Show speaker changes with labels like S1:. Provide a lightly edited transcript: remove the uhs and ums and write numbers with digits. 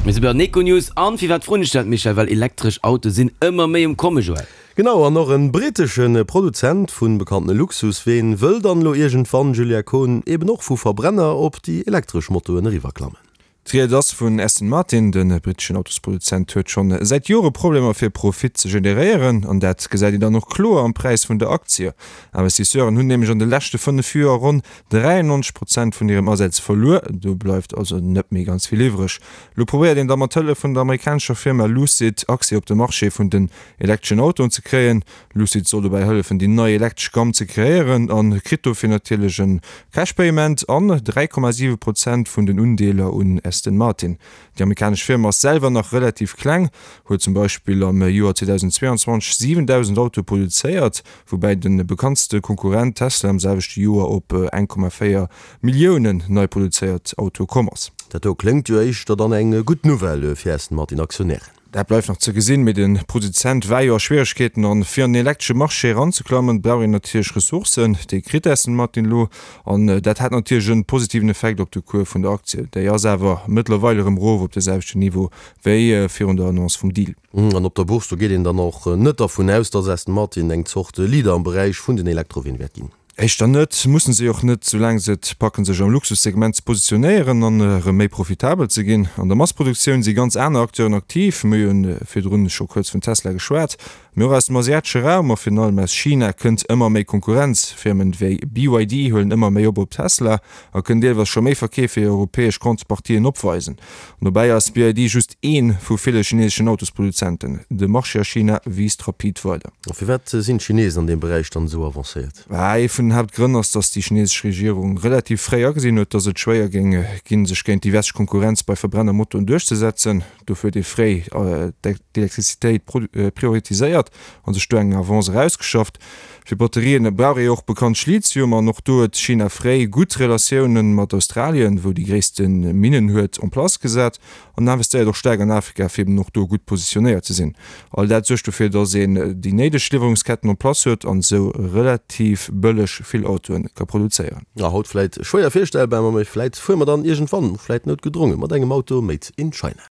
S1: Mir si bei den Econews. An firwat froen ech dat, Michel? Well elektresch Autoe sinn ëmmer méi um Komme, Joël.
S2: Genau, an och en britesche Produzent vun bekannte Luxusween wëll dann elo iergendwann, Julia Kohn, eben och vu Verbrenner op déi elektresch Motoen eriwwerklammen.
S3: D'Ried ass vun Aston Martin. De britteschen Autosproduzent huet schonn säit Jore Problemer fir Profit ze generéieren an dat gesäit een dann och kloer am Präis vun der Aktie. Investisseuren hunn nämlech an de leschte 5 Joer ronn 93 Prozent vun hirem Asaz verluer. Do bleift also net méi ganz vill iwwreg. Lo probéiert een da mat Hëllef vun der amerikanescher Firma Lucid Accès op de Marché vun den elektreschen Autoen ze kréien. Lucid soll dobäi hëllefen déi nei elektresch Gamm ze kreéieren a kritt dofir natierlech e Cash Payment an 3,7 Prozent vun den Undeeler un Aston Martin. Déi amerikanesch Firma ass selwer nach relativ kleng, huet zum Beispill am Joer 2022 7.000 Autoe produzéiert, woubäi de bekanntste Konkurrent Tesla am selwechte Joer op 1,4 Milliounen nei produzéiert Autoe komm ass.
S2: Dat do kléngt jo éischter dann eng gutt Nouvelle fir Aston Martin Aktionären.
S3: Dat bleift nach ze gesinn, mee de Produzent war jo a Schwieregkeeten an fir an den elektresche Marché eranzeklammen, brauch een natierlech Ressourcen. Déi kritt Aston Martin elo an dat hat natierlech en positiven Effekt op de Cours vun der Aktie. Déi ass awer mëttlerweil erëm erof op de selwechten Niveau wéi virun der Annonce vum Deal.
S2: An op der Bourse, do geet een dann och net dervun aus, datt Aston Martin eng Zort Leader am Beräich vun den Elektroween wäert ginn.
S3: Éischter net, mussen se och net, soulaang se et packen sech am Luxussegment ze positionéieren an erëm méi profitabel ze ginn. An der Massproduktioun si ganz aner Acteuren aktiv, mir hunn virdrun scho kuerz vun Tesla geschwat, mee och aus dem asiatesche Raum a virun allem aus China kënnt ëmmer méi Konkurrenz. Firmen wéi BYD huelen ëmmer méi op op Tesla a kënnen deelweis scho méi Verkeef wéi europäesch Contrepartien opweisen. An dobäi ass BYD just ee vu ville chineseschen Autosproduzenten. De Marché a China wiisst rapid weider.
S2: A firwat sinn d'Chinesen an deem Beräich dann esou avancéiert?
S3: Ee vun den Haaptgrënn ass, datt déi chinesesch Regierung relativ fréi agesinn huet, datt et schwéier géing ginn, sech géint déi westlech Konkurrenz bei Verbrennermotoren duerchzesetzen. Dofir huet ee fréi d'Elektrizitéit prioritiséiert a sech do eng Avance erausgeschafft. Fir Batterien brauch ee jo och bekanntlech Lithium an och do huet China fréi gutt Relatioune mat Australien, wou déi gréisste Minnen huet, en place gesat. An investéiert och staark an Afrika, fir eben och do gutt positionéiert ze sinn. All dat suergt dofir, datt een déi néideg Liwwerungsketten en place huet an esou relativ bëlleg vill Autoe ka produzéieren.
S2: A haut vläit schwéier virstellbar, ma vläit fuere mer dann iergendwann, vläit noutgedronge mat engem Auto made in China.